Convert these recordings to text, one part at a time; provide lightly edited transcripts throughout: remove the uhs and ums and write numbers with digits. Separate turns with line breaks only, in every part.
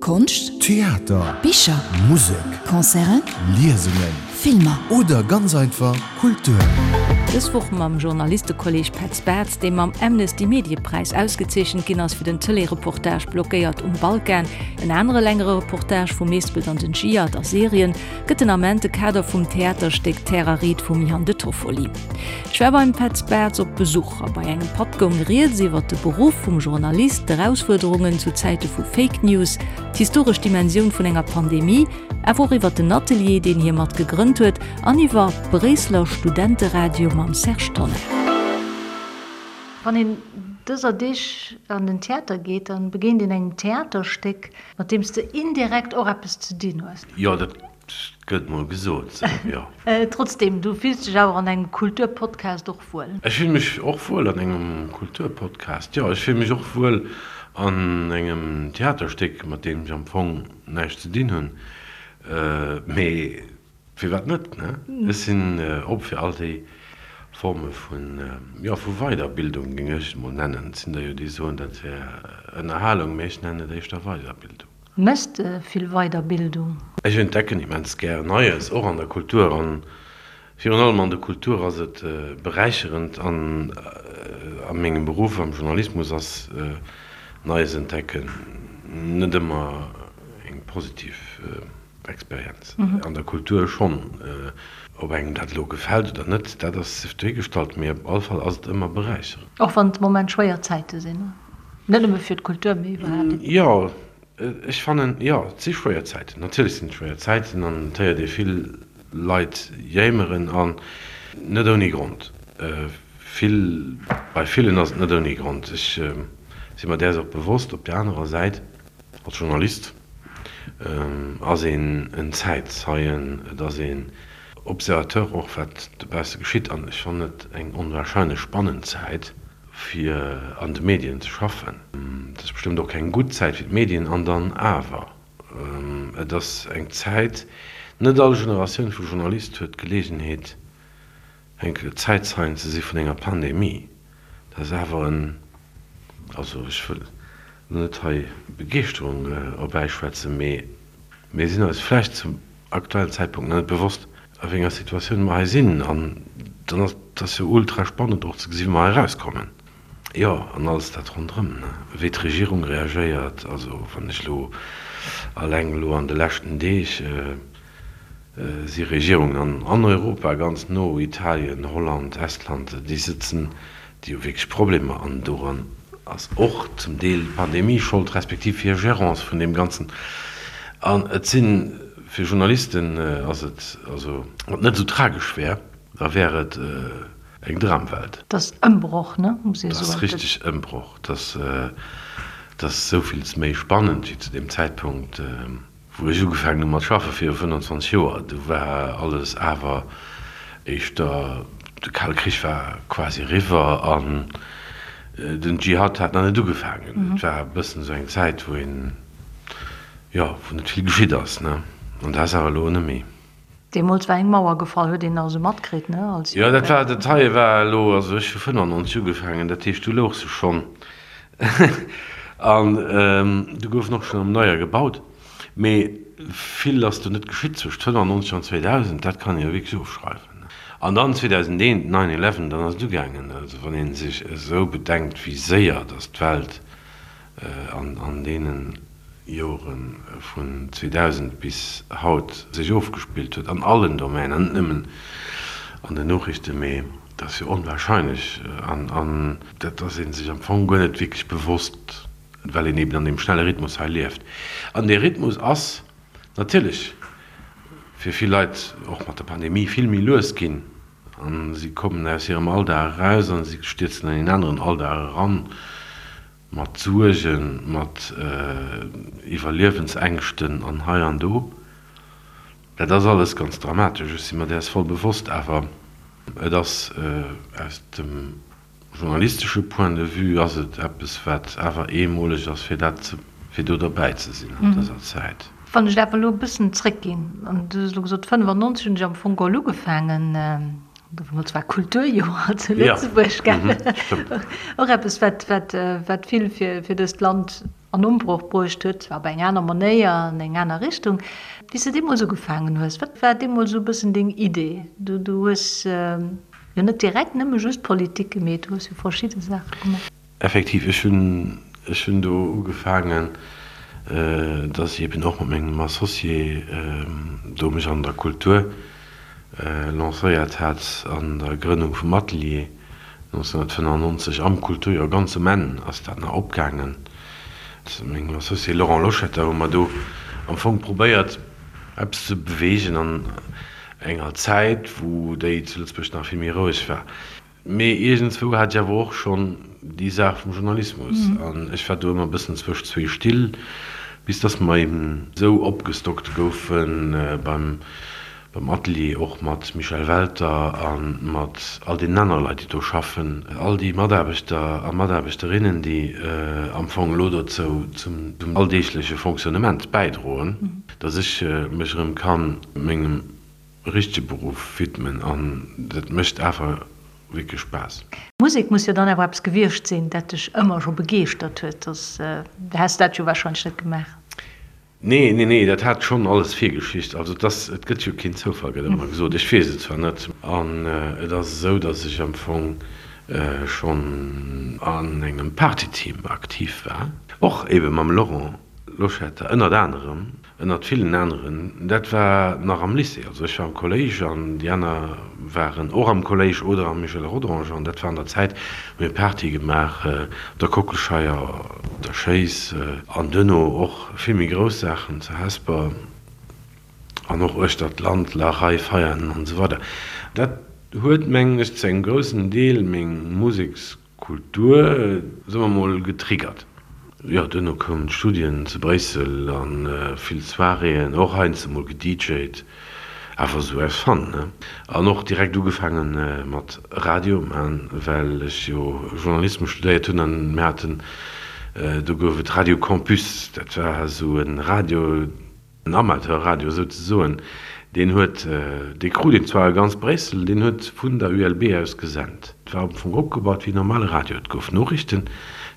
Konscht,
Theater,
Bicher,
Musek,
Concerten,
Liesungen,
Filmer.
Oder ganz einfach Kultur.
Dës Woch mam Journalistekolleg Petz Bartz, dee mam Amnesty Mediepräis ausgezeechent ginn ass fir den Tëlee-Reportage Blockéiert um Balkan. En anere längere Reportage vum Mespelt an den Dschihad a Syrien gëtt den Ament de Kader vum Theaterstéck Terre Aride vum Ian De Toffoli. Ech war beim Petz Bartz op Besuch a bei engem Patt goung rieds iwwer de Beruff vum Journalist, d'Erausfuerderungen zu Zäite vu Fake News, d'historesch Dimensioun vun enger Pandemie, awer och iwwer den Atelier, deen hie mat gegrënnt huet an iwwer Bréisseler Studenteradio mam Serge Tonnar.
Wann een dëser Deeg an den Theater geet, da begéint een engem Theaterstéck, mat deem s de indirekt och eppes ze dinn hues.
Jo, dat gëtt mol gesot sou, jo.
Trotzdem, du fills dech awer an engem Kulturpodcast och wuel?
Ech fill mech och wuel an engem Kulturpodcast, jo. Ech fill mech och wuel an engem Theaterstéck, mat deem ech am Fong näischt ze dinn hunn. Mee firwat net, ne? Ech sinn op fir all déi Forme vun, jo, vu Weiderbildung, géing ech et mol nennen. Et sinn der jo, déi soen, dat wär Ënnerhalung, mee ech nennen et éischter Weiderbildung.
Méchs de vill Weiderbildung?
Ech entdecken immens gär Neies, och an der Kultur. An virun allem an der Kultur ass et beräicherend. An a mengem Beruff, am Journalismus, ass Neies entdecken net ëmmer eng positiv Experienz. An der Kultur schonn. Ob engem dat elo gefält oder net, dat ass sief dohigestallt, mee op all Fall ass et ëmmer beräicherend.
Och wann et de Moment schwéier Zäite sinn, net nëmme fir d'Kultur, mee iwwerhaapt.
Jo, ech fannen, jo, et si schwéier Zäiten. Natierlech sinn et schwéier Zäiten an et héiert ee vill Leit jéimeren an net ouni Grond. Vill, bei villen ass et net ouni Grond. Ech si mer däers och bewosst. Op där anerer Säit, als Journalist ass een en Zäitzeien, et ass een Observateur och wat dobausse geschitt an ech fannen et eng onwahrscheinlech spannend Zäit fir an de Medien ze schaffen. Et ass bestëmmt och keng gutt Zäit fir d'Medien an dann awer, et ass eng Zäit, net all Generatioun vu Journalist huet d'Geleegenheet eng Zäitzeien ze si vun enger Pandemie. Dat ass awer en, also ech wëll elo net hei Begeeschterung erbäischwätzen, mee mir sinn eis vläicht zum aktuellen Zäitpunkt nach net bewosst, a wéi enger Situatioun mer hei sinn. An dann ass et ass jo ultra spannend och ze gesi wéi mer hei erauskommen. Jo, an alles dat ronderëm, ne, wéi d'Regierung reagéiert. Also wann ech elo alleng elo an de leschten Deeg si Regierungen an Europa ganz no, Italien, Holland, Estland, déi sëtzen, déi hu wierklech Problemer an doran ass och zum Deel d'Pandemie Schold, respektiv hir Gérance vun deem Ganzen. An et si fir Journalisten ass et, also wann et net esou tragesch wär, da wär et eng Dramwelt.
Et ass Ëmbroch, ne, muss ee
soen. Et ass richteg Ëmbroch. Et ass esouvilles méi spannend wéi zu deem Zäitpunkt. Wou ech ugefaangen hu mat schaffe viru 25 Joer, du war alles awer éischter, de Kale Krich war quasi eriwwer an den Dschihad hat nach net ugefaangen. Et war e bëssen esou eng Zäit, wou een, jo, wou net vill geschitt ass, ne? An dat ass awer elo net méi.
Deemools war eng Mauer gefall, huet een nach esou matkritt, ne? Als
Jo, dat war, dat heie war elo, also ech hu 95 ugefaangen, dat heescht, du louch se schonn an du gouf en och schonn am Neier gebaut, mee vill ass do net geschitt zwëscht 95 an 2000, dat kann ee jo wierklech ofschreiwen. An dann 2001, Nine Eleven, dann ass et ugaangen. Also wann ee sech esou bedenkt, wéi séier datt d'Welt an deene Jore vun 2000 bis haut sech ofgespillt huet, an allen Domänen, net nëmmen an den Noriichten, mee dat ass jo onwahrscheinlech an dat ass ee sech am Fong guer net wierklech bewosst, well een eben an deem schnelle Rhythmus hei lieft. An dee Rhythmus ass natierlech fir vill Leit och mat der Pandemie vill méi lues ginn a si kommen aus hirem Alldag eraus a si stierzen an een aneren Alldag eran, Mat Suergen, mat Iwwerliewensängschten an hei an do. Dat ass alles ganz dramatesch, ech si mer däers voll bewosst. Awer et ass aus dem journalistesche Point de vue ass et eppes, wat awer eemoleg ass, fir dat ze, fir do derbäi ze sinn an dëser Zäit.
Wann ech awer elo e bëssen zréckginn, an du hues elo gesot, 95 hunn ech am Fong geholl ugefaangen, Deemools war Kulturjoer zu Lëtzebuerg, gell? Och eppes, wat, wat, wat vill fir, fir dëst Land an. an Ombroch bruecht huet, zwar op eng aner Manéier, an eng aner Richtung. Wéi s de deemools ugefaangen hues, wat war deemools esou e bëssen deng Idee? Du hues jo net direkt nëmme just Politik gemeet, du hues jo verschidde Saache gemaach.
Effektiv, ech hunn, ech hunn do ugefaangen, dass ech eben och mat mengem Associé do mech an der Kultur lancéiert hat, an der Grënnung vum Atelier 1995 am Kulturjoer, ganz um Enn ass dat nach opgaangen. Mat mengem Associé Laurent Loschetter hu mer do am Fong probéiert, eppes ze beweegen an enger Zäit, wou déi zu Lëtzebuerg nach vill méi roueg war. Mee iergendswou hat ech awer och schonn déi Saach vum Journalismus an ech war do ëmmer e bëssen zwëscht zwee Still, bis dass mer eben esou opgestockt goufe beim beim Atelier, och mat Michel Welter a mat all deenen anere Leit, déi do schaffen, all déi Mataarbechter a Mataarbechterinnen, déi am Fong elo dozou zum alldeegleche Fonctionnement bäidroen, dass ech mech erëm ka mengem richtege Beruff widmen an dat mécht awer wierklech Spaass.
Musek muss jo dann awer eppes gewiescht sinn, dat dech ëmmer scho begeeschtert huet, soss häss dat jo warscheinlech net gemaach.
Nee, nee, nee, dat hat schonn alles Virgeschicht. Also et ass, et gëtt jo keen Zoufall, gëtt ëmmer gesot. Ech weess et zwar net. An et ass esou, datt ech am Fong schonn an engem Partyteam aktiv war, och ebe mam Laurent Loschetter ënnert anerem. Ënnert villen aneren. Dat war nach am Lycée, also ech war am Kolléisch an déi aner waren och am Kolléisch oder am Michel Rodange an dat war an der Zäit, hu mir Party gemaach op der Kockelscheier, op der Schéiss an duerno och vill méi grouss Saachen zu Hesper an och uechter d'Land, La Rei, Veianen an esou weider. Dat huet, mengen ech, zu engem groussen Deel meng Museks. Kultur, soe mer mol, getriggert. Jo, duerno koumen d'Studien zu Bréissel a vill Soiréeën, och heiansdo mol gedjt, awer esou aus Fun, ne? An och direkt ugefaange mat Radio man, well ech jo Journalismus studéiert hunn an mir haten, do gouf et Radio Campus, dat war esou e Radio, En Amateurradio souzesoen, deen huet, dee krut een zwar a ganz Bréissel, deen huet vun der ULB aus gesent. Et war am Fong opgebaut wéi normale Radio. Et gouf Noriichten,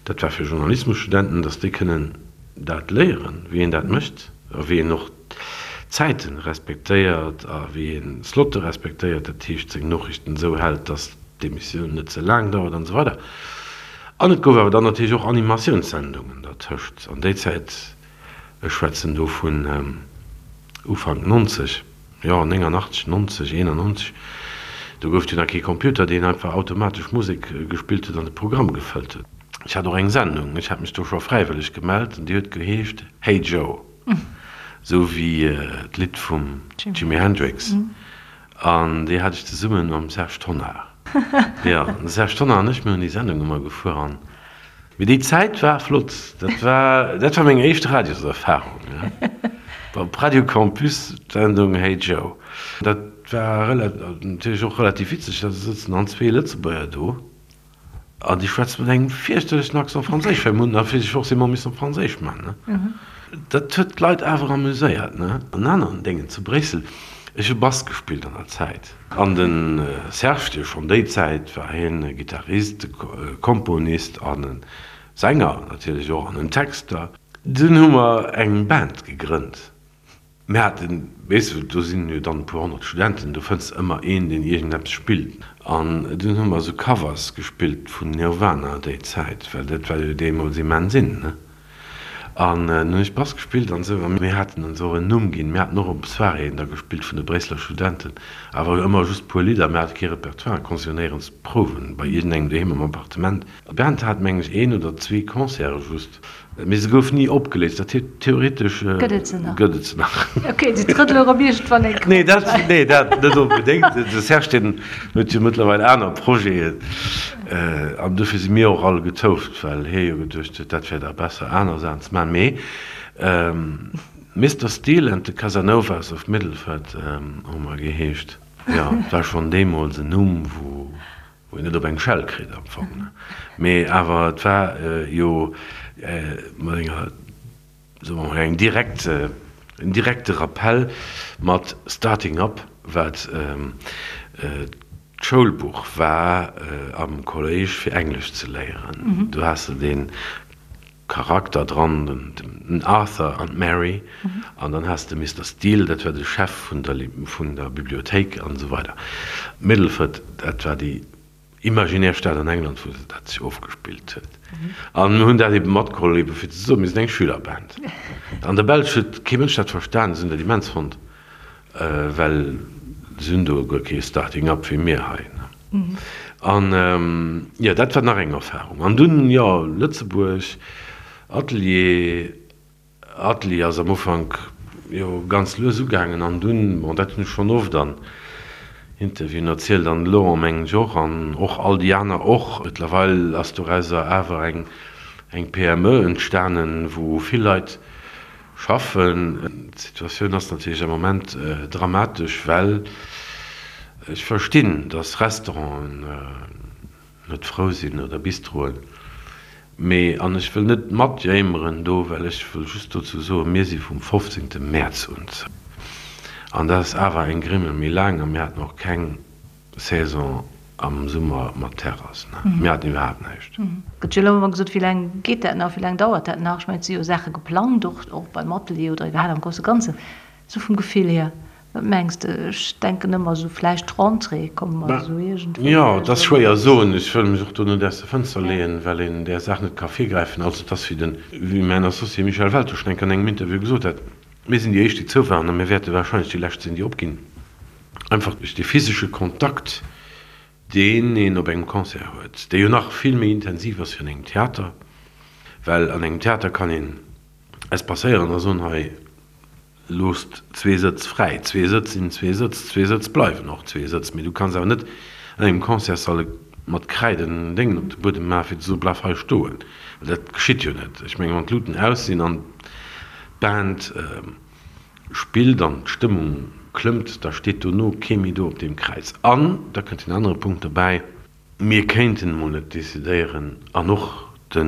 dat war fir Journalismusstudenten, datt déi kënnen dat léieren, wéi een dat mécht a wéi een och d'Zäite respektéiert a wéi een Slotte respektéiert, dat heescht seng Noriichten esou hält, datt d'Emissioun net ze laang dauert an esou weider. An et gouf awer dann natierlech och Animatiounssendungen dertëscht. An déi Zäit Ech schwätzen do vun Ufank 90, jo 89, 90, 91, do gouf et jo nach kee Computer, deen einfach automatesch Musek gespillt huet an de Programm gefëllt huet. Ech hat och eng Sendung, ech hat mech do scho fräiwëlleg gemellt an déi huet geheescht Hey Joe, esou wéi d'Lidd vum Jimi Hendrix an déi hat ech zesumme mam Serge Tonnar. Jo, de Serge Tonnar an ech, mir hunn déi Sendung ëmmer gefuer an Mee déi Zäit war flott. Dat war, dat war meng éischt Radioserfarung, ja. Op Radio Campus, d'Sendung Hey Joe. Dat war rela-, natierlech och relativ witzeg, da sëtzen dann zwee Lëtzebuerger do an déi schwätzen mat engem fierchterlechen Accent Franséisch, well mir hunn natierlech forcément missen op Franséisch man, ne. Dat huet d'Leit awer amuséiert, ne. En aneren Déngen zu Bréissel, ech hu Bass gespillt an der Zäit. An de Serge, dee schonn déi Zäit war hien e Gittarist, e Komponist an e Sänger natierlech och an en Texter. Dunn hu mer eng Band gegrënnt. Mir haten, weess de, do sinn jo dann e puer honnert Studenten, do fënns de ëmmer een, deen iergendeppes spillt. An dunn hu mer esou Covers gespillt vun Nirvana déi Zäit, well dat war jo deemools immens in, ne? An dann hunn ech Bass gespillt an esou. A mir haten ons och en Numm ginn. Mir haten och op Soiréeën da gespillt vun de Bréisseler Studenten, awer ëmmer just puer Lidder. Mir hate kee Repertoire, konnte jo néierens prouwen, bei iergendengem doheem am Appartement. D'Band hat, mengen ech, een oder zwee Concerte just, mee se gouf ni opgeléist. Dat heescht, theoretesch
Gëtt et se nach?
Gëtt et se nach.
Ok, déi trëttele erëm iergendwann eng
Kéier. Nee, dat, nee, dat net onbedéngt. De Serge, deen huet jo mëttlerweil aner Projeten. An dofir si mir och all getouft, well hie jo geduecht huet, dat wär da besser aner Saachen ze maachen. Mee Mister Steele and the Casanovas of Middleford hu mer geheescht. Jo, et war schonn deemools en Numm, wou een net op eng Schell kritt am Fong. Mee awer et war jo mat enger. soe mer mol, eng direkt, en direkte Rappell mat Starting Up, wat d'Schoulbuch war am Kolléisch fir Englesch ze léieren. Do has de dee. Charakter dran, den Arthur an d'Mary, an dann has de Mister Steele, dat war de Chef vun der vun der Bibliothéik an esou weider. Middleford, dat war déi imaginär Stad an England, wou dat sech ofgespillt huet. An mir hunn dat ebe matgeholl, ebe fir ze soen, mir sinn eng Schülerband. An der Belsch huet kee Mënsch dat verstan, se hunn dat immens fonnt. Well se hunn do guer kee Starting up wéi mir hei. An jo, dat war nach eng Erfahrung. An dunn, jo, Lëtzebuerg, Atelier. Atelier ass am Ufank jo ganz lues ugaangen an dunn, bon, dat hunn ech schonn oft an Interviewen erzielt an de Laurent mengen ech och an och all déi aner och. Mëttlerweil ass dorauser awer eng eng PME entstanen, wou vill Leit Schaffen. D'Situatioun ass natierlech am Moment dramatesch, well ech verstinn, datt Restauranten net frou sinn oder Bistroen. Mee, an ech wëll net matjéimeren do, well ech wëll just dozou soen, mir si vum 15. Mäerz un zou. An dat ass awer eng Grimmel méi laang a mir haten och keng Saison am Summer mat Terrass, ne? Mir haten iwwerhaapt näischt.
Gëtt jo elo ëmmer gesot, wéi laang geet dat nach, wéi laang dauert dat nach? Ech mengen, et si jo Saache geplangt, och, och beim Atelier oder iwwerhaapt am grousse Ganzen. Esou vum Gefill hier, wat mengs de? Ech denken ëmmer esou vläicht d'Rentrée, komme mer esou iergendwéi
Jo, et ass schwéier soen. Ech wëll mech och do net aus der Fënster leeën, well een där Saach net ka virgräifen. Also et ass wéi den, wéi mäin Associé Michel Welter schonn eng Kéier an engem Interview gesot hat, Mir sinn déi éischt, déi zou waren a mir wäerte warscheinlech déi lescht sinn, déi opginn. Einfach duerch dee physesche Kontakt, deen een op engem Concert huet, dee jo nach vill méi intensiv ass wéi an engem Theater, well an engem Theater kann een espacéieren a soen, hei loosst zwee Sëtz fräi, zwee Sëtz sinn zwee Sëtz, zwee Sëtz bleiwen och zwee Sëtz, mee du kanns awer net an engem Concertssall mat Kräid en Déngen op de Buedem maachen, fir ze soen, bleif hei stoen, well dat geschitt jo net. Ech mengen, wann d'Luten aus sinn an d'Band spillt an d'Stëmmung klëmmt, da steet dono kee méi do op deem Kräiz. An da kënnt en anere Punkt dobäi, Mir kéinten emol net decidéieren, an och de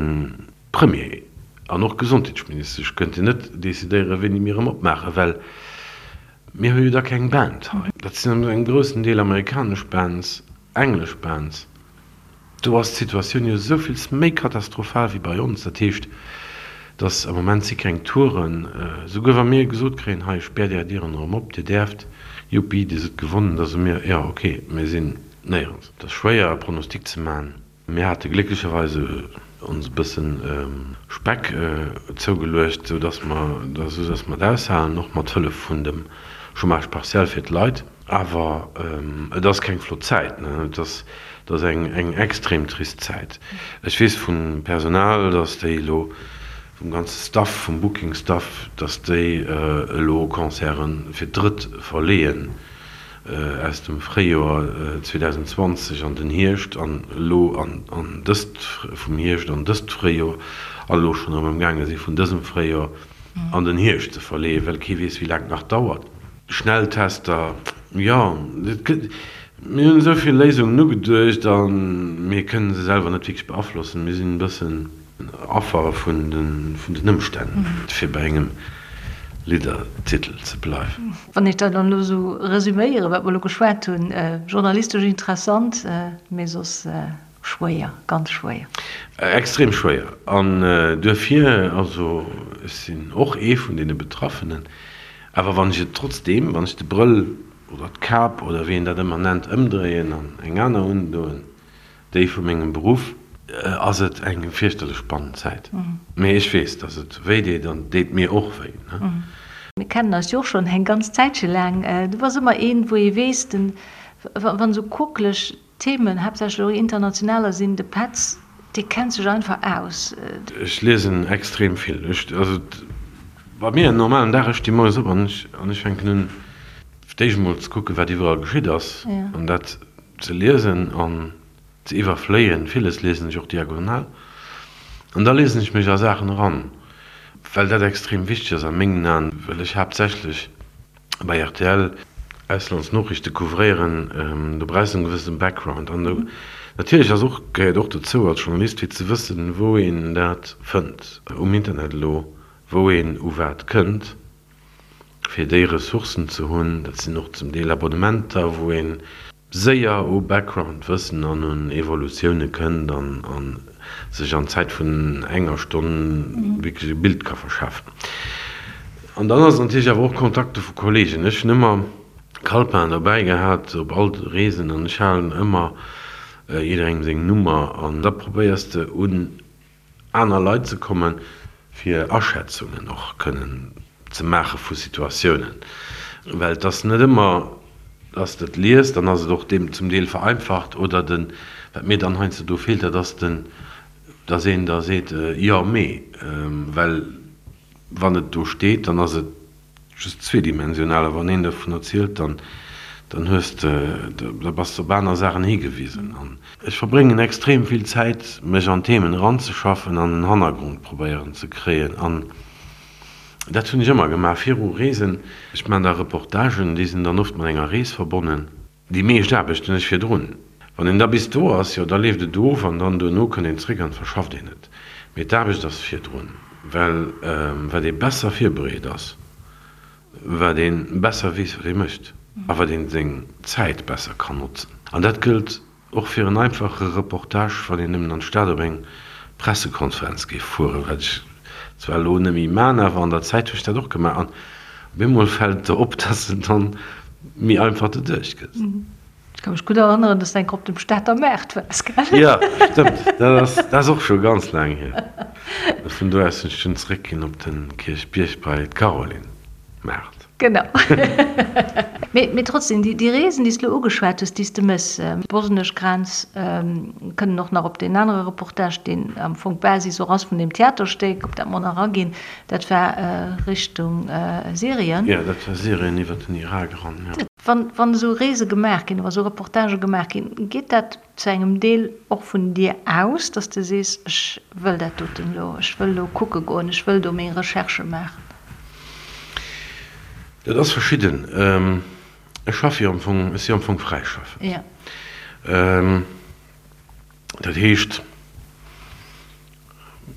Premier an och d'Gesondheetsministesch kënnten net decidéieren, wéini mir erëm opmaachen, well mir hu jo da keng Band hei. Dat sinn an engem groussen Deel amerikanesch Bands, englesch Bands. Do ass d'Situatioun jo esouvills méi katastrophal wéi bei ons. Dat heescht, dass am Moment si keng Touren, souguer wa mir gesot kréien, hei späert Är Dieren erëm op, Dir däerft, juppi, Dir sidd gewonnen, da soe mir, jo ok, mir sinn néierens. Et ass schwéier e Pronostic ze maachen. Mir hate glécklecherweis ons e bësse Speck zougeluecht, esou dass mer, esou dass mer et aushalen, och mat Hëllef vun dem Chômage partiel fir d'Leit. Awer et ass keng flott Zäit, et ass, et ass eng, eng extrem trist Zäit. Ech weess vum Personal, datt déi elo, vum ganze Staff, vum Booking-Staff, datt déi elo Concerte fir d'drëtt verleeën, aus dem Fréijoer 2020 an den Hierscht an elo an, an dëst, vum Hierscht an dëst Fréijoer, an elo schonn erëm amgaange si vun dësem Fréijoer an den Hierscht ze verleeën, well kee weess, wéi laang et nach dauert. Schnelltester, jo, et gëtt, mir hunn esou vill Léisungen ugeduecht a mir kënnen se selwer net wierklech beaflossen. Mir sinn e bëssen Affer vun den Ëmstänn, fir bei engem Liddertitel ze bleiwen.
Wann ech dat dann elo esou resüméieren, wat mer elo geschwat hunn, journalistesch interessant, mee soss schwéier, ganz schwéier.
Extrem schwéier. An duerfir, also ech sinn och ee vun deene Betraffenen, awer wann ech et trotzdeem, wann ech de Brëll oder d'Kap oder wéi een dat ëmmer nennt, ëmdréien an eng aner undoen, déi vu mengem Beruff, ass et eng fierchterlech spannend Zäit. Mee ech weess, datt et wéi deet an et deet mir och wéi.
Mir kennen eis jo och schonn eng ganz Zäitche laang. Du bass ëmmer een, wou ee weess, den, wann esou quokeleg Themen, haaptsächlech och internationaler sinn, de Petz, dee kennt sech einfach aus.
Ech liesen extrem vill. Ech, also bei mir en normalen Dag, ech sti moies op an ech, an ech fänken un fir d'éischt emol ze kucken, wat iwwerall geschitt ass an dat ze liesen an ze iwwerfléien. Villes liesen ech och diagonal an da liesen ech mech a Saachen eran, well dat extrem wichteg ass a mengen Aen, well ech haaptsächlech bei rtl Auslandsnoriichte couvréieren, do brauchs de en gewëssenen Background. An do natierlech ass och, gehéiert och dozou als Journalist fir ze wëssen, wou een dat fënnt um Internet elo, wou een u wat kënnt, fir déi Ressourcen ze hunn. Dat sinn och zum Deel Abonnementer, wou een séier u Background-Wëssen an un Evolutioune kënnt an. sech an Zäit vun enger Stonn wierklech e Bild ka verschafen. An dann ass et natierlech awer och Kontakte vu Kollegen. Ech hunn ëmmer Calepin dobäi gehat op all Reesen an ech halen ëmmer jidderengem seng Nummer an da probéiers de un aner Leit ze kommen, fir Aschätzungen och kënnen ze maache vu Situatiounen, well et ass net ëmmer, dass de et liest, dann ass et och deem zum Deel vereinfacht oder den, wat mir dann heiansdo do feelt, dat ass den, dass een da seet, jo mee, well wann et do steet, dann ass et just zweedimensional, a wann een dovun erzielt, dann, dann hues de, da bass de op aner Saachen higewisen. An ech verbréngen extrem vill Zäit, mech an Themen eranzeschaffen an en Hannergrond probéieren ze kréien. An dat hunn ech ëmmer gemaach viru Reesen. Ech maachen da Reportagen, déi sinn dann oft mat enger Rees verbonnen. Déi meescht Aarbecht hunn ech virdrun. Wann een da bis do ass, jo, da leeft et of an dann duerno kënnt een zréck an verschafft een et. Mee d'Aarbecht ass virdrun, well wat ee besser virbereet ass, wat ee besser weess, wat ee mécht a wat ee seng Zäit besser kann notzen. An dat gëllt och fir en einfache Reportage, wann een nëmmen an d'Stad op eng Pressekonferenz géif fueren, wat ech zwar elo net méi man, awer an der Zäit hu ech dat och gemaach. An op eemol fält et der op, dass de dann méi einfach doduerch gëss.
Ech ka mech gutt erënneren, dass de eng Kéier op dem Stater Maart waars, gell?
Jo, stëmmt. Dat ass, dat ass och scho ganz laang hier. Vun do aus sinn ech dunn zeréckginn op de Kierchbierg bei d'Caroline Maart.
Genau. Mee trotzdem, déi Reesen, déi s de elo ugeschwat hues, déi s de méchs, d'bosnesch Grenz, kënnen och nach op deen anere Reportage, deen am Fong d'Basis och ass vun deem Theaterstéck, op dat mer nach aginn, dat war Richtung Syrien.
Jo, dat war Syrien iwwer den Irak eran, jo.
Wann esou Reese gemaach ginn, wa sou Reportagë gemaach ginn, geet dat zu engem Deel och vun dir aus, dass de sees, ech wëll dat doten elo, ech wëll elo kucke goen, ech wëll do meng Recherchë maachen?
Dat ass verschidden. Ech schaffe jo am Fong, ech si am Fong fräischaffend. Dat heescht,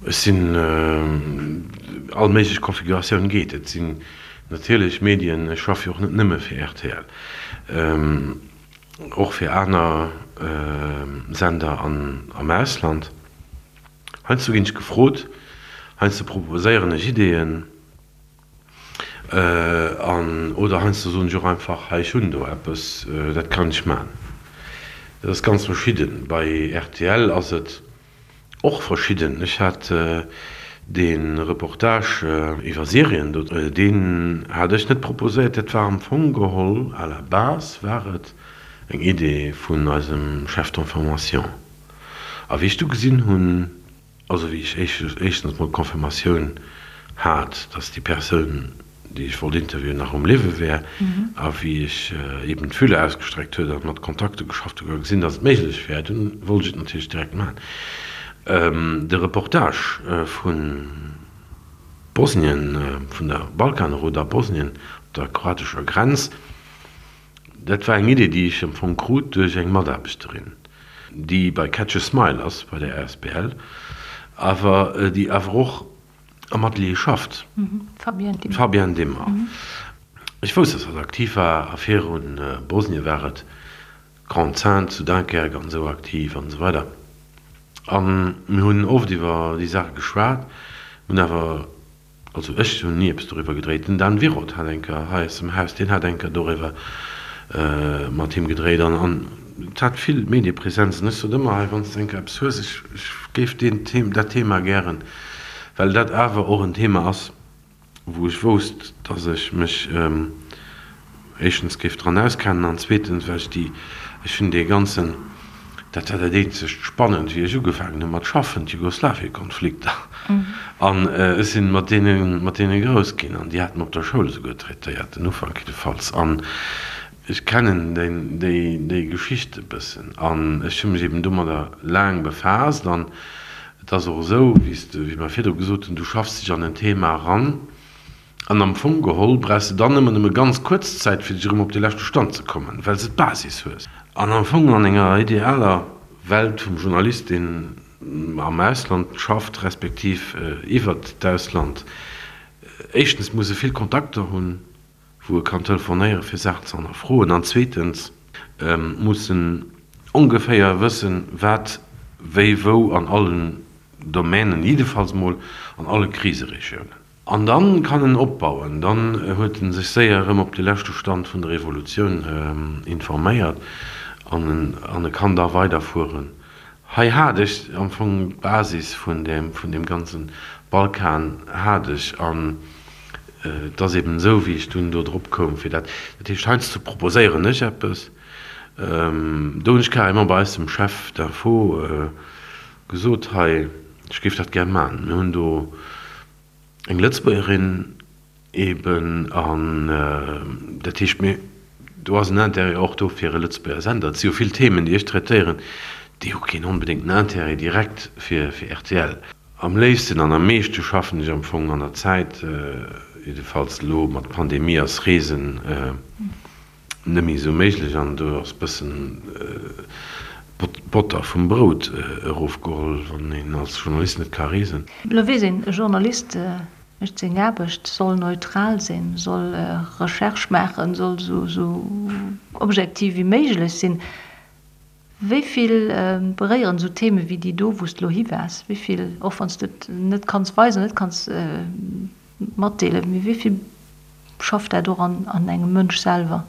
ech sinn, all méiglech Konfiguratioun geet. Et sinn natierlech Medien, ech schaffe jo och net nëmme fir rtl, och fir aner Sender am Ausland. Heiansdo ginn ech gefrot, heiansdo proposéieren ech Ideeën. An, oder heiansdo soen ech och einfach, hei ech hunn do eppes, dat kann ech man. Dat ass ganz verschidden. Bei rtl ass et och verschidden. Ech hat dee Reportage iwwer Syrien do, deen hat ech net proposéiert, dat war am Fong geholl, à la base war et eng Idee vun eisem Chef d'information. A wéi ech du gesinn hunn, Also wéi ech éischtens mol d'Confirmatioun hat, dass déi Persoun, déi ech wollt interviewen, nach um Liewe wär, a wéi ech eben d'Fühler ausgestreckt huet a mat Kontakter geschafft hunn a gesinn, dass et méiglech wär, dunn wollt ech et natierlech direkt maachen. De Reportage vu Bosnien, vun der Balkanroute a Bosnien op der kroatescher Grenz, Dat war eng Idee, déi ech am Fong krut duerch eng Mataarbechterin, déi bei Catch a Smile ass, bei der asbl, awer déi awer och am Atelier schafft, d'Fabienne Dimmer. Ech wousst, dass hatt aktiv war a viru Bosnien war et Grande-Synthe zu Dunkerque an esou aktiv an esou weider. A mir hunn oft iwwer déi Saache geschwat, hunn awer Also ech hunn ni eppes doriwwer gedréit. Den Dan Wiroth hat eng Kéier hei aus dem Haus, deen hat eng Kéier doriwwer mat him gedréit an an et hat vill Mediepresenz. An ech sot ëmmer, hei wann s de eng Kéier eppes hues, ech ech géif deen Thema, dat Thema gären, well dat awer och en Thema ass, wou ech wousst, datt ech mech éischtens géif dran auskennen an zweetens well ech déi, ech hunn dee ganzen, dat war dat eenzegt Spannend wéi ech ugefaangen hu mat schaffen, d'Jugoslawiekonflikter an ech sinn mat deene mat deene grouss ginn an déi hate mer op der Schoul esouguer traitéiert, den Ufank jiddefalls an ech kennen déi déi déi Geschicht e bëssen an ech hu mech eben domadder laang befaasst an et ass och esou, wéi s de, wéi mer virdru gesot hunn, du schaffs dech an en Thema eran. An am Fong geholl brauchs de dann ëmmer nëmme ganz kuerz Zäit, fir dech erëm op de leschte Stand ze kommen, well s de d'Basis hues. An am Fong an enger idealer Welt vum Journalist, deen am Ausland schafft, respektiv iwwert d'Ausland, éischtens muss e vill Kontakter hunn, wou e kann telefonéieren, fir Saachen ze hannerfroen, an zweetens muss en ongeféier wëssen, wat. wéi wou an allen Domänen, jiddefalls mol an alle Kriseregiounen. An dann kann en opbauen. Dann huet en sech séier erëm op de leschte Stand vun der Evolutioun informéiert an en kann da weiderfueren. Hei hat ech am Fong d'Basis vun deem, vun deem ganze Balkan hat ech an et ass eben esou, wéi ech dunn do drop koum fir dat, dat heescht heiansdo proposéieren ech eppes, do hunn ech carrément bei eis dem Chef d'info gesot, hei ech géif dat gär man. Mir hunn do eng Lëtzebuergerin eben an dat heescht mir, do ass en Intérêt och do fir e Lëtzebuerger Sender. Et si jo vill Themen, déi ech traitéieren, déi hu keen onbedéngten Intérêt direkt fir rtl. Am léifsten an am meeschte schaffen ech am Fong an der Zäit, jiddefalls elo mat Pandemie ass Reesen net méi esou méiglech an do ass bëssen d'Botter vum Brout erofgeholl, wann een als Journalist net ka reesen.
Elo weess een, e Journalist mécht seng Aarbecht, soll neutral sinn, soll Recherche maachen, soll esou objektiv wéi méiglech sinn. Wéi vill beréieren esou Theme wéi déi do, wou s de elo hi waars, wéi vill, och wann s de et net kanns weisen, net kanns matdeelen, mee wéi vill schafft dat och an engem Mënsch selwer?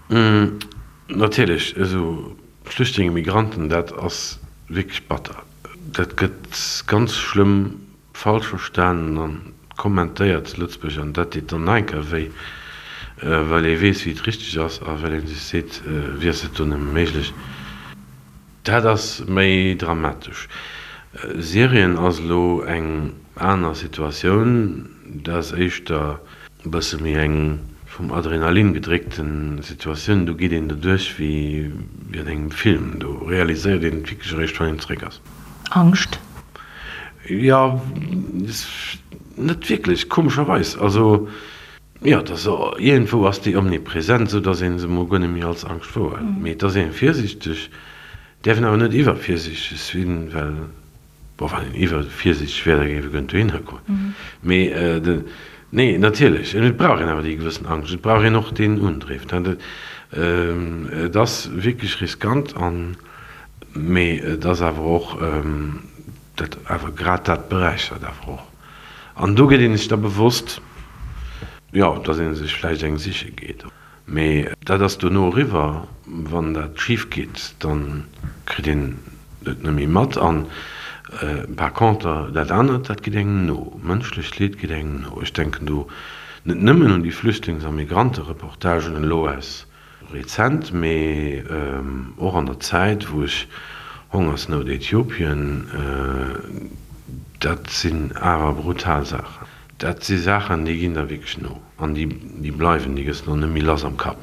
Natierlech, esou Flüchtlinge, Migranten, dat ass wierklech batter. Dat gëtt ganz schlëmm Falsch verstanen an kommentéiert zu Lëtzebuerg an dat deet dann nach eng Kéier wéi, well ee weess wéi et richteg ass a well ee sech seet, wéi ass dat do nëmme méiglech. Dat ass méi dramatesch. Syrien ass elo eng aner Situatioun, dat ass éischter e bësse méi eng vum Adrenalin gedréckte Situatioun, do geet een doduerch wéi an engem Film, do realiséiert een et wierklech eréischt wann een zeréck ass.
Angscht?
Jo, net wierklech, komescherweis. Also, jo, et ass, iergendwou ass déi omnipresent, esou datt ee se emol guer net méi als Angscht wouerhëlt. Mee et ass ee virsiichteg, däerf een awer net iwwervirsiichteg sinn, well, bon, wann een iwwervirsiichteg wär, da géif e guer net dohinner goen. Mee de, nee, natierlech, et brauch een awer déi gewëssen Angscht, et brauch een och deen Undriff. Et ass wierklech riskant an. Mee et ass awer och, dat awer grad dat beräichert awer och. An do gëtt een sech da bewosst, jo, datt ee sech vläicht eng siche geet. Mee dat ass dono eriwwer. Wann dat schif geet, da kritt een et net méi mat. An par conter dat anert, dat geet engem no. Mënschlecht Leed geet engem no. Ech denken do net nëmmen un déi Flüchtlings a Migrantereportagen elo aus Rezent, mee och an der Zäit wou ech Hongersnout Äthiopien, dat sinn awer brutal Saachen. Dat si Saachen déi ginn der wierklech no an déi bleiwen, déi gëss de och net méi lass am Kapp.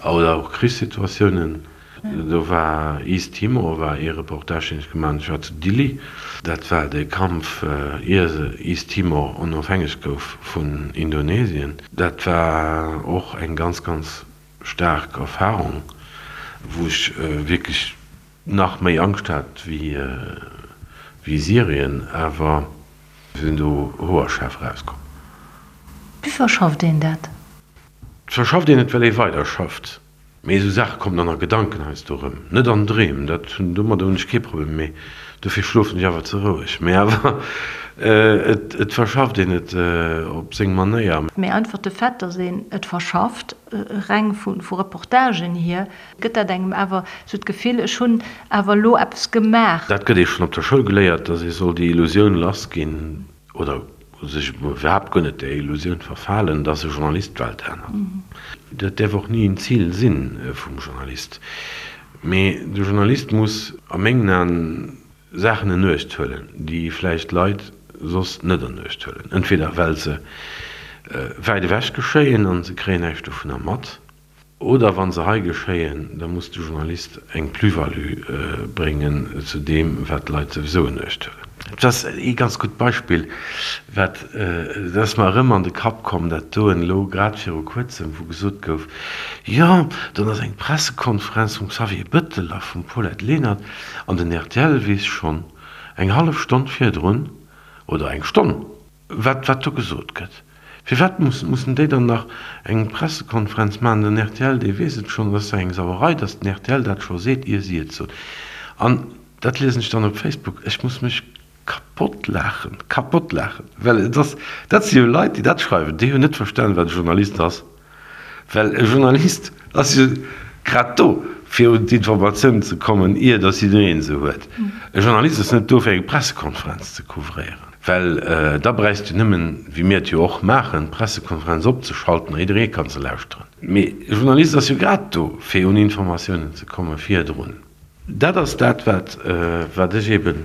Oder och Krichssituatiounen, do war East Timor war ee Reportage deen ech gemaach hunn, ech war zu Dili, dat war de Kampf ier East Timor onofhängeg gouf vun Indonesien. Dat war och eng ganz, ganz staark Erfarung, wou ech wierklech nach méi Angscht hat wéi Syrien, awer sinn do hoerschaarf erauskomm.
Wéi verschafft een dat?
Et verschafft een et, well ee weiderschafft. Mee esou Saache kommen dann a Gedanken heiansdo erëm. Net an Dreem, dat hunn, domadder hunn ech kee Problem, mee dofir schlofen ech awer ze roueg. Mee awer et, et verschafft een et op seng Manéier.
Mee einfach de Fait, datt een et verschafft, reng vu vu Reportagen hier, gëtt dat engem awer esou d'Gefill, ech hunn awer elo eppes gemaach.
Dat gëtt ee schonn op der Schoul geléiert, datt ee soll déi Illusioun lassginn, oder sech iwwerhaapt guer net där Illusioun verfalen, dass e Journalist d'Welt ännert. Dat däerf och ni en Zil si vum Journalist. Mee de Journalist muss a mengen Aen Saachen en Uecht huelen, déi vläicht Leit soss net an Uecht huelen, entweder well se wäit ewech geschéien an se kréien näischt dovunner mat, Oder wa se hei geschéien, da muss de Journalist eng Plus-value bréngen zu deem, wat d'Leit souwisou en Uecht huelen. Et ass ee ganz gutt Beispill, wat, dat ass mer erëm an de Kapp komm, dat doen elo grad viru Kuerzem, wou gesot gouf, jo, dann ass eng Pressekonferenz vum Xavier Bettel a vum Paulette Lenert an den rtl weess schonn eng hallef Stonn virdrun oder eng Stonn, Wat wat do gesot gëtt. Firwat mussen déi dann nach eng Pressekonferenz maachen? Den rtl, dee weess et schonn. Et ass jo eng Sauerei, datt den rtl dat scho seet, ier si et soen. An dat liesen ech dann op Facebook, ech muss mech kapott laachen, kapott laachen, well et ass, dat si jo Leit, déi dat schreiwen, déi hunn net verstanen, wat e Journalist ass. Well e Journalist ass jo grad do, fir un d'Informatiounen ze kommen, ier datt jidderee se huet. E Journalist ass net do, fir eng Pressekonferenz ze couvréieren, well da bräichst du nëmmen, wéi mir et jo och maachen, d'Pressekonferenz opzeschalten a jidderee ka se lauschteren. Mee e Journalist ass jo grad do, fir un Informatiounen ze komme virdrun. Dat ass dat, wat ech eebe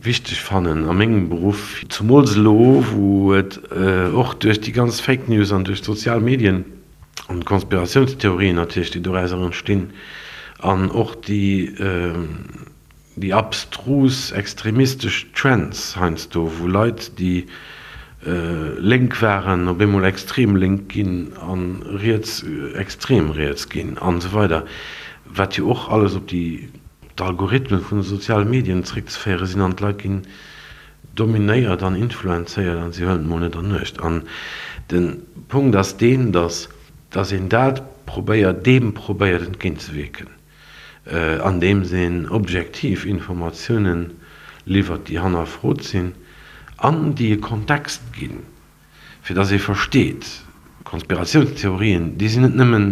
wichteg fannen a mengem Beruff, zumools elo, wou et och duerch déi ganz Fake News an duerch d'sozial Medien an d'Konspiratiounstheorien natierlech, déi dorauser entstinn, an och déi, déi abstrus extremistesch Trends heiansdo, wou Leit, déi lénk waren, op eemol extrem lénk ginn a riets extrem riets ginn an esou weider, wat jo och alles op déi d'Algorithmen vun de soziale Medien zréckzeféiere sinn an d'Leit ginn dominéiert an influenzéiert an si huelen et mol net an Uecht. An de Punkt ass deen, datt datt een dat probéiert, deem probéiert entgéintzewierken, andeems een objektiv Informatiounen liwwert, déi hannerfrot sinn an déi e Kontext ginn. Fir dass ee versteet, Konspiratiounstheorien, déi sinn net nëmmen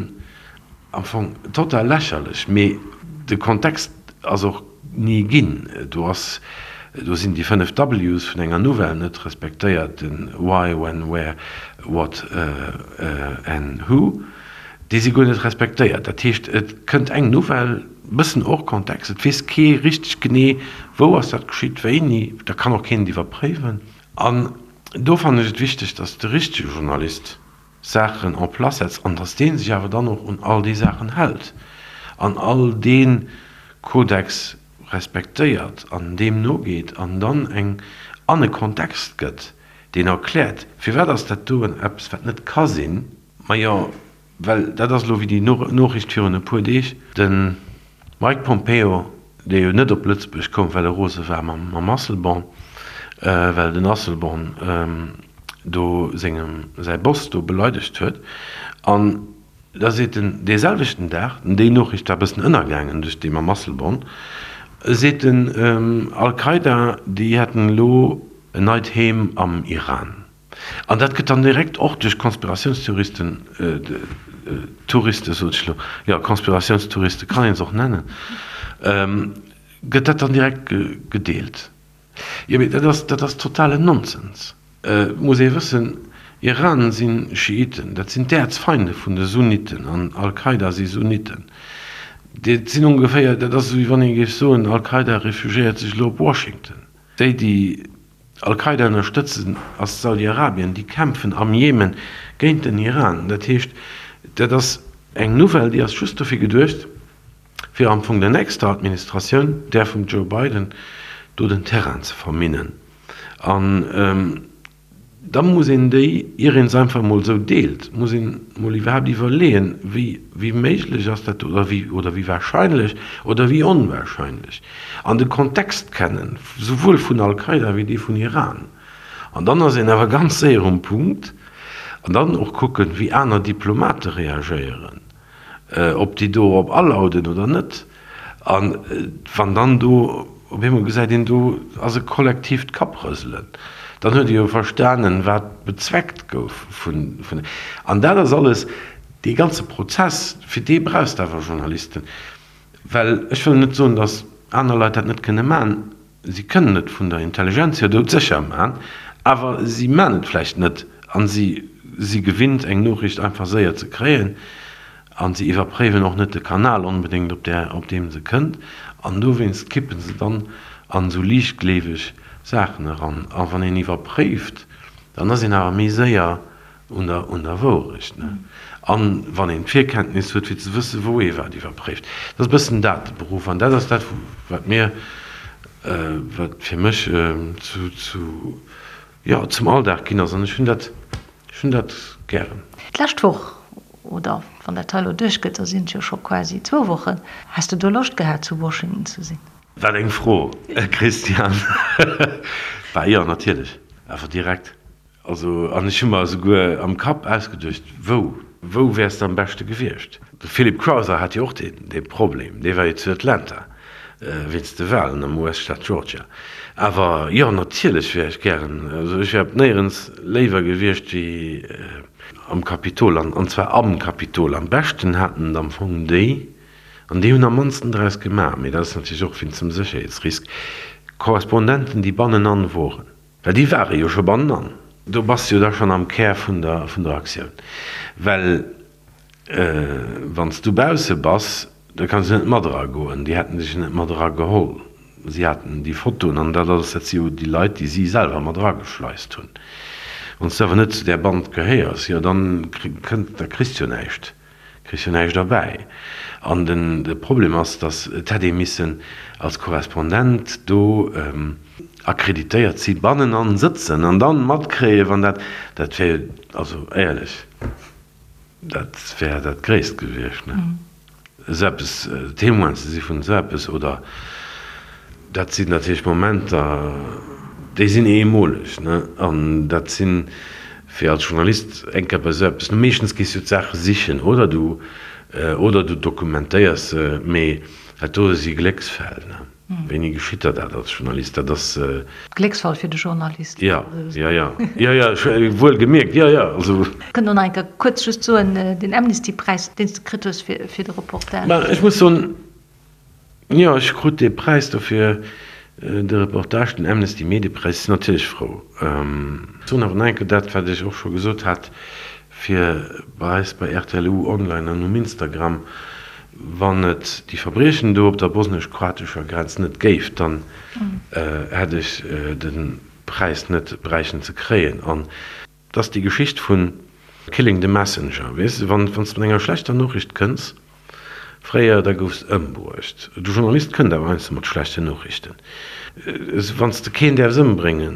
am Fong total lächerlech, mee de Kontext ass och ni ginn. Do ass, do sinn déi 5 W's vun enger Nouvelle net respektéiert, den Why, When, Where, What and Who, déi si guer net respektéiert. Dat heescht, et kënnt eng Nouvelle, bëssen hors contexte, et weess kee richteg genee, wou ass dat geschitt, wéini, da kann och keen et iwwerpréiwen. An do fannen ech et wichteg, dass de richtege Journalist Saachen en place setzt an dass dee sech awer dann och un all déi Saachen hält an all dee Kodex respektéiert an deem nogeet an dann eng an e Kontext gëtt, deen erkläert, firwat ass dat doen eppes, wat net ka sinn. Majo, Well dat ass elo wéi déi Noriicht virun e puer Deeg, de Mike Pompeo, dee jo net op Lëtzebuerg koum, well e rose war mam Asselborn, well den Asselborn do sengem säi Boss do beleidegt huet. An da seet en dee selwechten Dag, déi Noriicht war e bëssen ënnergaangen duerch déi mam Asselborn, seet en, Al-Qaida, déi hätten elo en neit Heem am Iran. An dat gëtt dann direkt och duerch Konspiratiounstheoristen, Touriste sot ech elo, jo, Konspiratiounstouriste kann een se och nennen, gëtt dat dann direkt gedeelt. Jo, mee dat ass, dat ass totalen Nonsens. Et muss ee wëssen, Iran si Schiiten, dat sinn d'Äerzfeinde vun de Sunniten an Al-Qaida si Sunniten. Dat sinn ongeféier, dat ass esou wéi wann ee géif soen, Al-Qaida refugiéiert sech elo op Washington. Déi, déi Al-Qaida ënnerstëtzen, ass Saudi-Arabien. Déi kämpfen am Jemen géint den Iran. Dat heescht, dat ass eng Nouvelle, déi ass just dofir geduecht, fir am Fong der nächster Administratioun, där vum Joe Biden, do den Terrain ze verminnen. An Da muss een déi, ier een se einfach emol esou deelt, muss een emol iwwerhaapt iwwerleeën, wéi, wéi méiglech ass dat oder wéi, oder wéi wahrscheinlech oder wéi onwahrscheinlech, an de Kontext kennen, souwuel vun Al-Qaida wéi dee vun Iran. An dann ass een awer ganz séier um Punkt. An dann och kucken, wéi aner Diplomate reagéieren. ob déi do op alauden oder net. A wann dann do op eemol gesäit een, do ass e kollektiivt Kapprëselen, dann huet ee jo verstanen, wat bezweckt gouf vun. An dat ass alles, dee ganze Prozess, fir dee brauchs de awer Journalisten. Well ech wëll net soen, datt aner Leit dat net kënne maachen. Si kënnen et vun der Intelligenz hier doudsécher man, awer si man et vläicht net an si si gewinnt eng Noriicht einfach séier ze kréien an si iwwerpréiwen och net de Kanal onbedéngt op där op deem se kënnt an dowéinst kippen se dann an esou liichtgleeweg Saachen eran. A wann een iwwerpréift, dann ass een awer méi séier un der, un der Wourecht, ne? An wann een d'Virkenntnis huet, fir ze wëssen, wou ee wat iwwerpréift. Dat ass e bëssen dat, de Beruff. An dat ass dat, wat mir, wat fir mech zu, zu, jo, zum Alldag ginn ass. An ech hunn dat, ech hunn dat gären.
D'lescht Woch, oder wann dat hei elo duerchgëtt, da sinn et jo scho quasi zwou Wochen, häss de do Loscht gehat, zu Washington ze sinn?
Wat eng Fro, Christian! Bah jo, natierlech, awer direkt. Also, an ech hu mer esouguer am Kapp ausgeduecht, wou, wou wäers de am beschte gewiescht? De Philip Crowther hat jo och dee, dee Problem, dee war jo zu Atlanta. Wéinst de Walen am US-Staat Georgia. Awer jo, natierlech wär ech gären, also ech wär op néierens léiwer gewiescht wéi am Kapitol, an zwar am Kapitol. Am beschten haten et am Fong déi, an déi hunn am mannsten draus gemaach, mee dat ass natierlech och wéinst dem Sécherheetsrisk, Korrespondenten, déi bannenan woren. Well déi ware jo scho bannenan. Do bass de jo da schonn am Kär vun der Aktioun. Well Wann s du bausse bass, da kanns du net mat era goen. Déi hätten dech net mat era geholl. Si haten déi Fotoen an dat alles, dat si jo déi Leit, déi si selwer mat erageschleist hunn. Wann s du awer net zu där Band gehéiers, jo dann kënnt, da kriss du jo näischt, kriss jo näischt erbäi. An den, de Problem ass, datt et hätt ee missen als Korrespondent do akkreditéiert si bannenan sëtzen an dann matkréien, wann dat, dat wär jo, also éierlech. Dat wär dat Gréisst gewiescht, ne? Esou eppes, Témoin ze si vun esou eppes, oder dat sinn natierlech Momenter, déi sinn eemoleg, ne? An dat sinn, fir als Journalist eng Kéier bei esou eppes, meeschtens gees du d'Saache sichen oder du, oder du dokumentéiers se, mee dat do si Glécksfäll, ne? Wéini geschitt der dat als Journalist? Dat ass.
Glécksfall fir de Journalist.
Jo, jo, jo, jo, jo, wuel gemierkt, jo, jo, also.
Kënnt och nach eng Kéier kuerz just soen, deen Amnesty-Präis, deen s de kritt hues fir de Reportage.
Mä ech muss soen, jo, ech krut dee Präis do fir de Reportage, den Amnesty-Mediepräis. Ech sinn natierlech frou. Ech soen awer nach eng Kéier dat, wat ech och scho gesot hat, fir bei eis bei rtl U Online an um Instagram, Wann et déi Verbriechen do op der bosnesch-kroatescher Grenz net géif, dann hätt ech de Präis net bräichen ze kréien. An et ass déi Geschicht vu Killing the Messenger, weess de, wann s de mat enger schlechter Noriicht kënns, fréier, da goufs de ëmbruecht. De Journalist kënnt awer heiansdo mat schlechten Noriichten. Wann s de keen däerfs ëmbrénge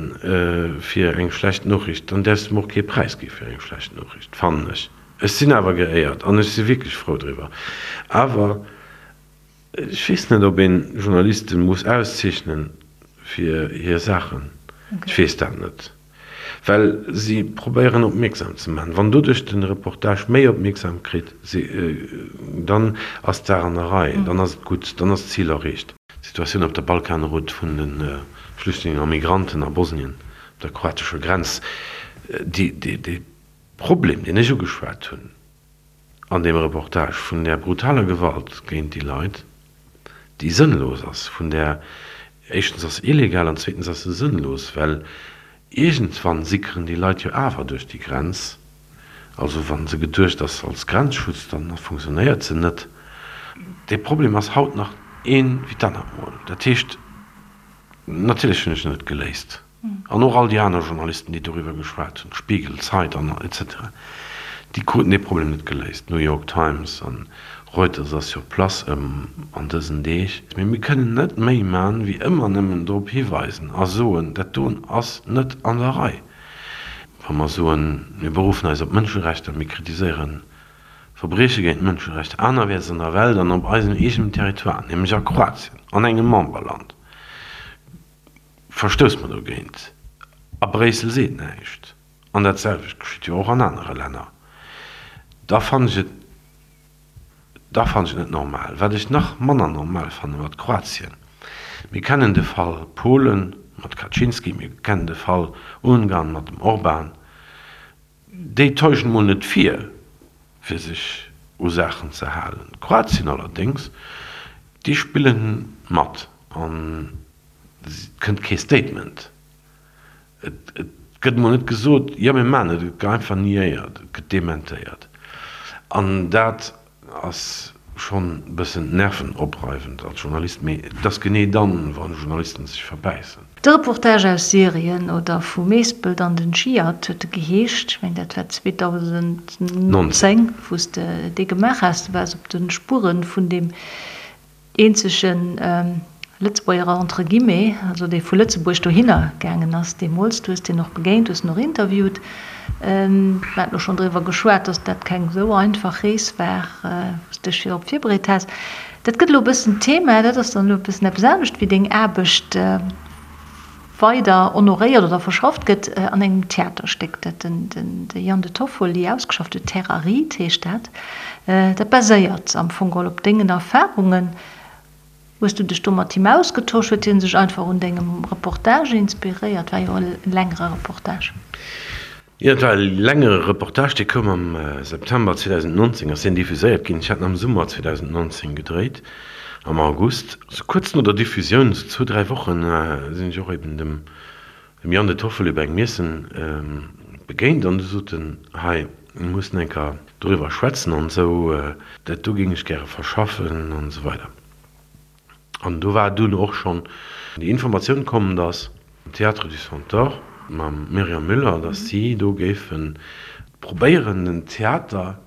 fir eng schlecht Noriicht, dann däerfs de em och kee Präis gi fir eng schlecht Noriicht, fannen ech. Ech sinn awer geéiert an ech si wierklech frou driwwer. Awer ech weess net, ob een Journalisten muss auszeechnen fir hir Saachen. Ech weess dat net. Well si probéieren opmierksam ze maachen. Wann doduerch den Reportage méi opmierksam kritt, dann ass d'Saach an der Rei, dann ass et gutt, dann ass d'Zil erreecht. D'Situatioun op der Balkanroute vun de Flüchtlingen a Migranten a Bosnien op der kroatescher Grenz, déi Problem, deen ech ugeschwat hunn an deem Reportage, vun där brutaler Gewalt géint déi Leit, déi sënnlos ass, vun där, éischtens ass se illegal an zweetens ass se sënnlos, well iergendwann sickeren déi Leit jo awer duerch déi Grenz. Also wa se geduecht ass als Grenzschutz, dann funktionéiert se net. Dee Problem ass haut nach ee wéi d'anert Mol. Dat heescht, natierlech hunn ech en net geléist. An och all déi aner Journalisten, déi doriwwer geschwat hunn, Spiegel, Zeit an etc. Déi kruten dee Problem net geléist. New York Times an Reuters ass sur place ëm an dësen Deeg. Mee mir kënnen net méi man, wéi ëmmer nëmmen drop hiweisen a soen, dat doen ass net an der Rei. Wa mer soen, mir beruffen eis op d'Mënscherechter, mir kritiséieren Verbrieche géint d'Mënscherechter anerwäerts an der Welt an op eisem eegenen Territoire, nämlech a Kroatien, an engem Memberland, Verstousse mer dogéint? A Bréissel seet näischt. An dat selwecht geschitt jo och an anere Länner. Da fannen ech et, da fannen ech et net normal. Wat ech nach manner normal fanne mat Kroatien, mir kennen de Fall Polen mat Kaczynski, mir kennen de Fall Ungarn mat dem Orban, déi täuschen emol net vir, fir sech u Saachen ze halen. Kroatien allerdéngs, déi spille mat an Et kënnt kee Statement. Et gëtt emol net gesot, jo mir maachen et. Et gëtt einfach niéiert, et gëtt dementéiert. An dat ass schonn e bëssen nervenopreiwend als Journalist. Mee et ass genee dann, wa Journalisten sech verbäissen.
De Reportage aus Syrien oder vu Meespelt an den Dschihad huet e geheescht. Ech mengen dat war 2019, wou s de dee gemaach has. Du waars op de Spuere vun deem eenzege Lëtzebuerger entre guillemets, also dee vu Lëtzebuerg dohinner gaangen ass deemools. Du hues deen och begéint, hues en och interviewt. Mir haten och schonn driwwer geschwat, datt dat keng esou einfach Rees war, wou s de dech virop virbereet has. Dat gëtt elo e bëssen Thema, dat ass dann elo e bëssen eppes anescht wéi deng Aarbecht weider honoréiert oder verschafft gëtt an engem Theaterstéck, dat den de Jan De Toffoli ausgeschafft huet, Terre aride heescht dat. Dat baséiert am Fong geholl op dengen Erfarungen. Hues du dech do mat him ausgetosch? Huet hien sech einfach un dengem Reportage inspiréiert? War jo e längere Reportage.
Jo, et war e längere Reportage, dee koum am September 2019, ass deen diffuséiert ginn. Ech hat en am Summer 2019 gedréit, am August. Sou kuerz no der Diffusioun, sou zwou, dräi Wochen, sinn ech och eben dem Dem Yann De Toffoli bei engem Iessen begéint an du sot en, hei, mir mussen eng Kéier doriwwer schwätzen an esou, dat do géing ech gäre verschaffen an esou weider. An do war dunn och schonn déi Informatioun komm, datt am Théâtre du Centaure mam Myriam Müller, datt si do géife probéieren, den Theater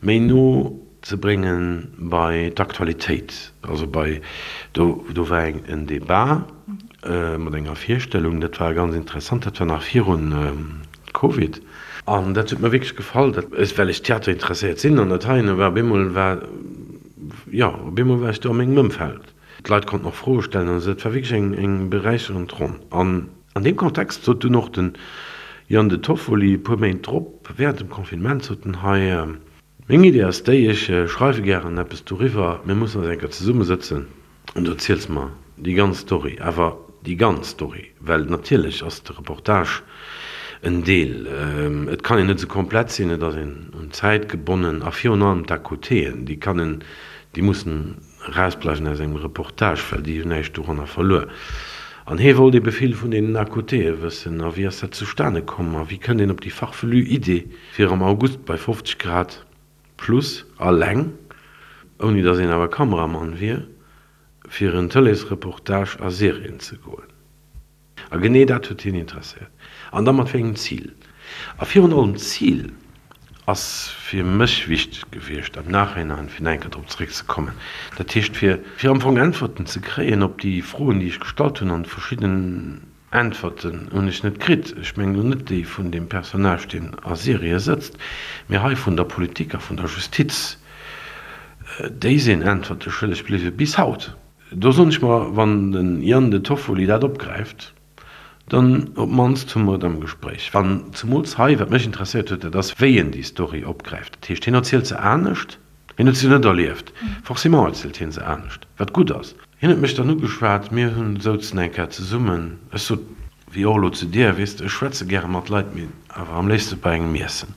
méi no ze brénge bei d'Aktualitéit, also bei, do do war eng en Débat mat enger Virstellung, dat war ganz interessant, dat war nach virun Covid an dat huet mer wierklech gefall, dat well ech Theater interesséiert sinn an dat heien war op eemol war, jo, op eemol war ech do a mengem Ëmfeld, d'Leit konnten och Froe stellen an esou, dat war wierklech eng eng beräicherend Ronn an. An deem Kontext sot dunn och den Yann De Toffoli e puer Méint drop, während dem Confinement, sot en, Hei, meng Idee ass déi, ech schreiwe gären eppes doriwwer, mir mussen eis eng Kéier zesummesëtzen an du erziels mer déi ganz Story, awer déi ganz Story, well natierlech ass de Reportage en Deel, et kann een net esou komplett sinn, et ass een un d'Zäit gebonnen a virun allem d'À-côtéen, déi kann en, déi mussen Erausbleiwen aus engem Reportage, well déi hunn näischt doranner verluer. An hie wollt ebe vill vun deenen À-côtéë wëssen. A wéi ass dat zustane komm? A wéi kënnt een op déi farfelue Idee, fir am August bei 50 Grad plus alleng, ouni datt een awer Kameramann wier, fir en Tëleesreportage a Syrien ze goen? A genee dat huet hien interesséiert. An da mat wéi engem Zil? A virun allem d'Zil ass fir mech wichteg gewiescht, am Nachhinein, fir nach eng Kéier drop zeréckzekommen, dat heescht fir, fir am Fong Äntwerten ze kréien op déi Froen, déi ech gestallt hunn. An verschidden Äntwerten hunn ech net kritt. Ech mengen elo net déi vun deem Personnage, deen a Syrie sëtzt, mee hei vun der Politik a vun der Justiz. Déi sinn Äntwerte schëlleg bliwwe bis haut. Do soen ech mer, wann den Ian De Toffoli dat opgräift, dann op d'mannst hu mer et am Gespréich. An zemools hei, wat mech interesséiert huet, dat ass, wéi en déi Story opgräift. Dat heescht, hien erzielt se anescht, hien huet se jo net erlieft, forcément erzielt hien se anescht, wat gutt ass. Hien huet mech dann ugeschwat, mir hunn souzen eng Kéier zesummen, ech sot, wéi och elo zu dir, weess de, ech schwätze gäre mat Leit, mee awer am léifste bei engem Iessen.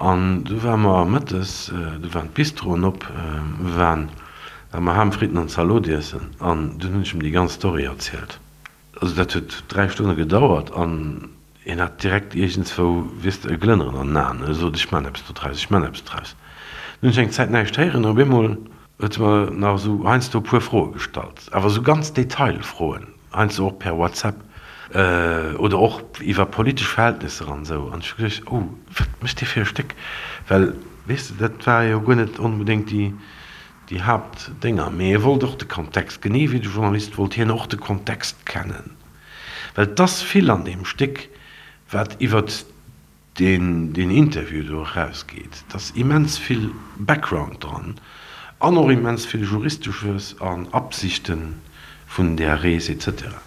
An du ware mer mëttes, du waren d'Bistroen op, mir waren War mer Ham, Fritten an Zalot iessen an dunn hunn ech em déi ganz Story erzielt. Also dat huet 3 Stonne gedauert an hien hat direkt iergendswou, weess de, e Glënneren an den Aen. E sot, ech man eppes dodraus, ech man eppes draus. Dunn hunn ech eng Zäit näischt héieren an op eemol huet e mer nach esou heiansdo e puer Froe gestallt, awer esou ganz Detailfroen, heiansdo och per WhatsApp oder och iwwer politesch Verhältnisser an esou. An ech hu geduecht, oh, wat mécht dee fir e Stéck? Well, weess de, dat war jo guer net onbedéngt déi Déi Haaptdénger. Mee e wollt och de Kontext, genee wéi de Journalist wollt hien och de Kontext kennen. Well 't ass vill an deem Stéck, wat iwwert deen deen Interview do erausgeet. 't ass immens vill Background dran an och immens vill Juristesches an Absichte vun där Rees et cetera.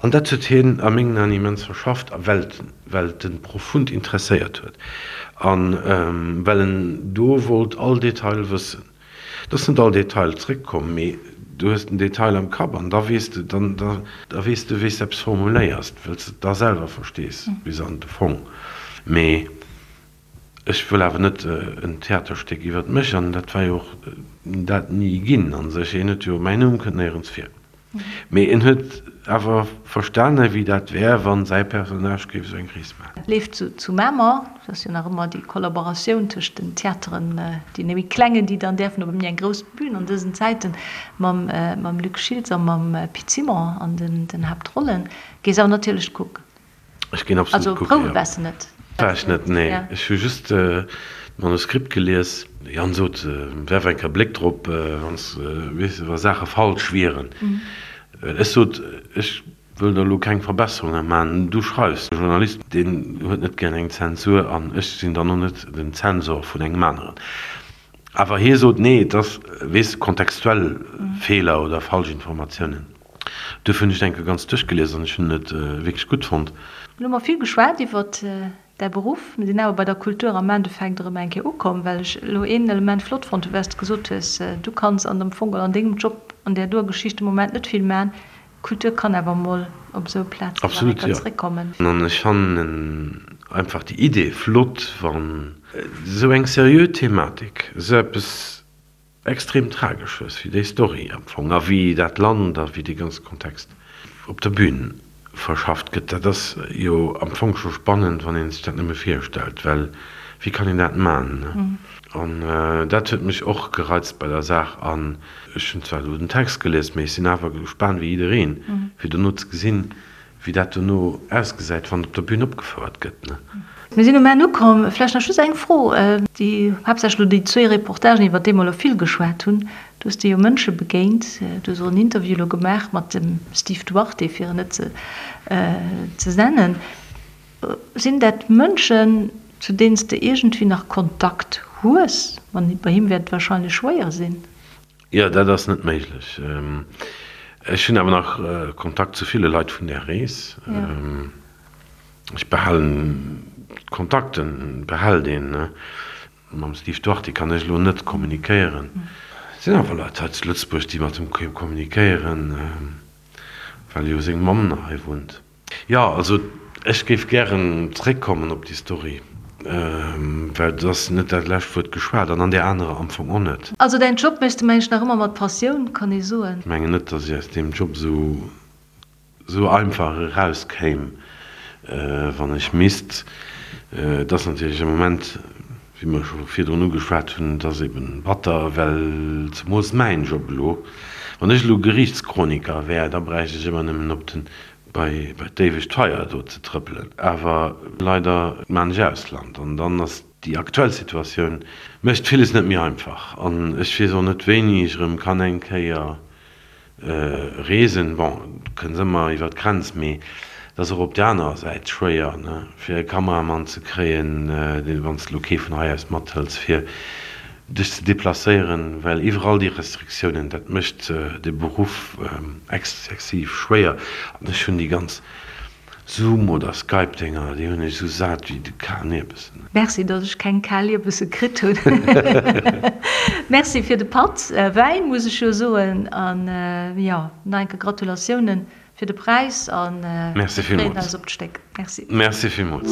An dat huet hien a mengen Aen immens verschafft, a well well et en profund interesséiert huet a well en do wollt all Detail wëssen. Et ass net all Detail zréckkomm, mee du hues den Detail am Kapp an da weess de, dann da weess de wéi s de eppes formuléiers, well s de et da selwer verstees bis an de Fong. Mee ech wëll awer net en Theaterstéck iwwert mech, an dat war jo och dat ni ginn a sech. Een huet jo, mäin Numm kënnt néierens vir. Mee en huet awer verstane wéi dat wär, wann säi Personnage géif esou eng Rees maachen.
Et leeft zu Mamer, et ass jo nach ëmmer déi Kollaboratioun tëscht den Theateren, deene méi klengen, déi dann däerfen op méi eng grouss Bühn an dësen Zäiten, mam Luc Schiltz a mam Pit Simon an den Haaptrollen. Gees awer natierlech kucken.
Ech ginn absolut kucken, jo.
Also Prouwe waars de net?
War ech net, nee. Ech hu just d'Manuskript gelies. De Yann sot, werf eng Kéier e Bléck drop, wann s, weess de, wa Saache falsch wieren. Ech sot, ech wëll der elo keng Verbesserunge man, du schreifs. E Journalist, deen huet net gären eng Zensur an ech sinn dann och net den Zensor vun engem aneren. Awer hie sot, nee, et ass, weess de, kontextuell Feeler oder falsch Informatiounen. Duerfir hunn ech et eng Kéier ganz duerchgelies an ech hunn et wierklech gutt fonnt.
Elo hu mer vill geschwat iwwert däi Beruff. Mir sinn awer bei der Kultur am Endeffekt erëm eng Kéier ukomm, well ech elo een Element flott fonnt hu, wat s de gesot hues, Du kanns an dem Fong oder an dengem Job. an där doer Geschicht de Moment net vill man. Kultur kann awer mol op esou Plazen nach eng
Absolut,
Kéier
jo.
zréckkommen.
An ech fannen einfach déi Idee flott, wann esou eng seriö Thematik, esou eppes extrem Tragesches wéi déi Story am Fong a wéi dat Land a wéi dee ganze Kontext op der Bühn verschafft gëtt, dat ass jo am Fong scho spannend, wann ee sech dat nëmme virstellt, well wéi kann een dat man, ne? An dat huet mech och gereizt bei der Saach. An ech hunn zwar elo den Text gelies, mee ech sinn awer gespaant wéi jiddereen, fir dono ze gesinn, wéi dat dono ausgesäit, wann et op der Bühn opgefouert gëtt, ne?
Mir sinn um Enn ukomm. Vläicht nach just eng Fro, déi haaptsächlech elo déi zwéi Reportagen, iwwer déi mer elo vill geschwat hunn. Du hues dir jo Mënsche begéint, du hues och en Interview elo gemaach mat dem Steve Duarte, fir en net ze nennen. Sinn dat Mënschen, zu deenen s de iergendwéi nach Kontakt hues? Bei him wäert et wahrscheinlech schwéier sinn.
Jo, dat ass net méiglech. Ech hunn awer nach Kontakt zu ville Leit vun där Rees. Ech behalen d'Kontakten, behält een. Mam Steve Duarte kann ech elo net kommunikéieren. Et sinn awer Leit hei zu Lëtzebuerg, déi mat him kommunikéieren, well jo seng Mamm nach hei wunnt. Jo, also ech géif gären zréckkommen op déi Story, well et ass net dat lescht Wuert geschwat an an där anerer am Fong och net.
Also däin Job méchs de mengen ech nach ëmmer mat Passioun, kann ee soen.
Ech mengen net, datt ech aus deem Job esou esou einfach erauskéim, wann ech misst. Et ass natierlech am Moment, wéi mer scho virdrun ugeschwat hunn, et ass eben batter, well zemools mäin Job elo, wann ech elo Geriichtschroniker wär, da bräicht ech ëmmer nëmmen op den bei d'éiwegt Feier do ze trëppelen. Awer leider maan ech Ausland an dann ass déi aktuell Situatioun mécht villes net méi einfach an ech weess och net wéini ech erëm kann eng Kéier reesen. Bon, du kënns ëmmer iwwer d'Grenz, mee et ass och op där anerer Säit schwéier ne fir e Kameramann ze kréien, deen wann s de elo kee vun hei aus mathëls fir dech ze deplacéieren, well iwwerall déi Restriktiounen, dat mécht de Beruff exzessiv schwéier. An ech hunn déi ganz Zoom oder Skype-Dénger, déi hunn ech esou sat wéi de kalen Ierbessen.
Merci, datt ech keng kal Ierbessen kritt hunn. Merci fir de Patt Wäin, muss ech jo soen. An jo, nach eng Kéier Gratulatiounen Fir de Präis an
mir freeën eis
op d'Stéck. Merci.
Merci villmools.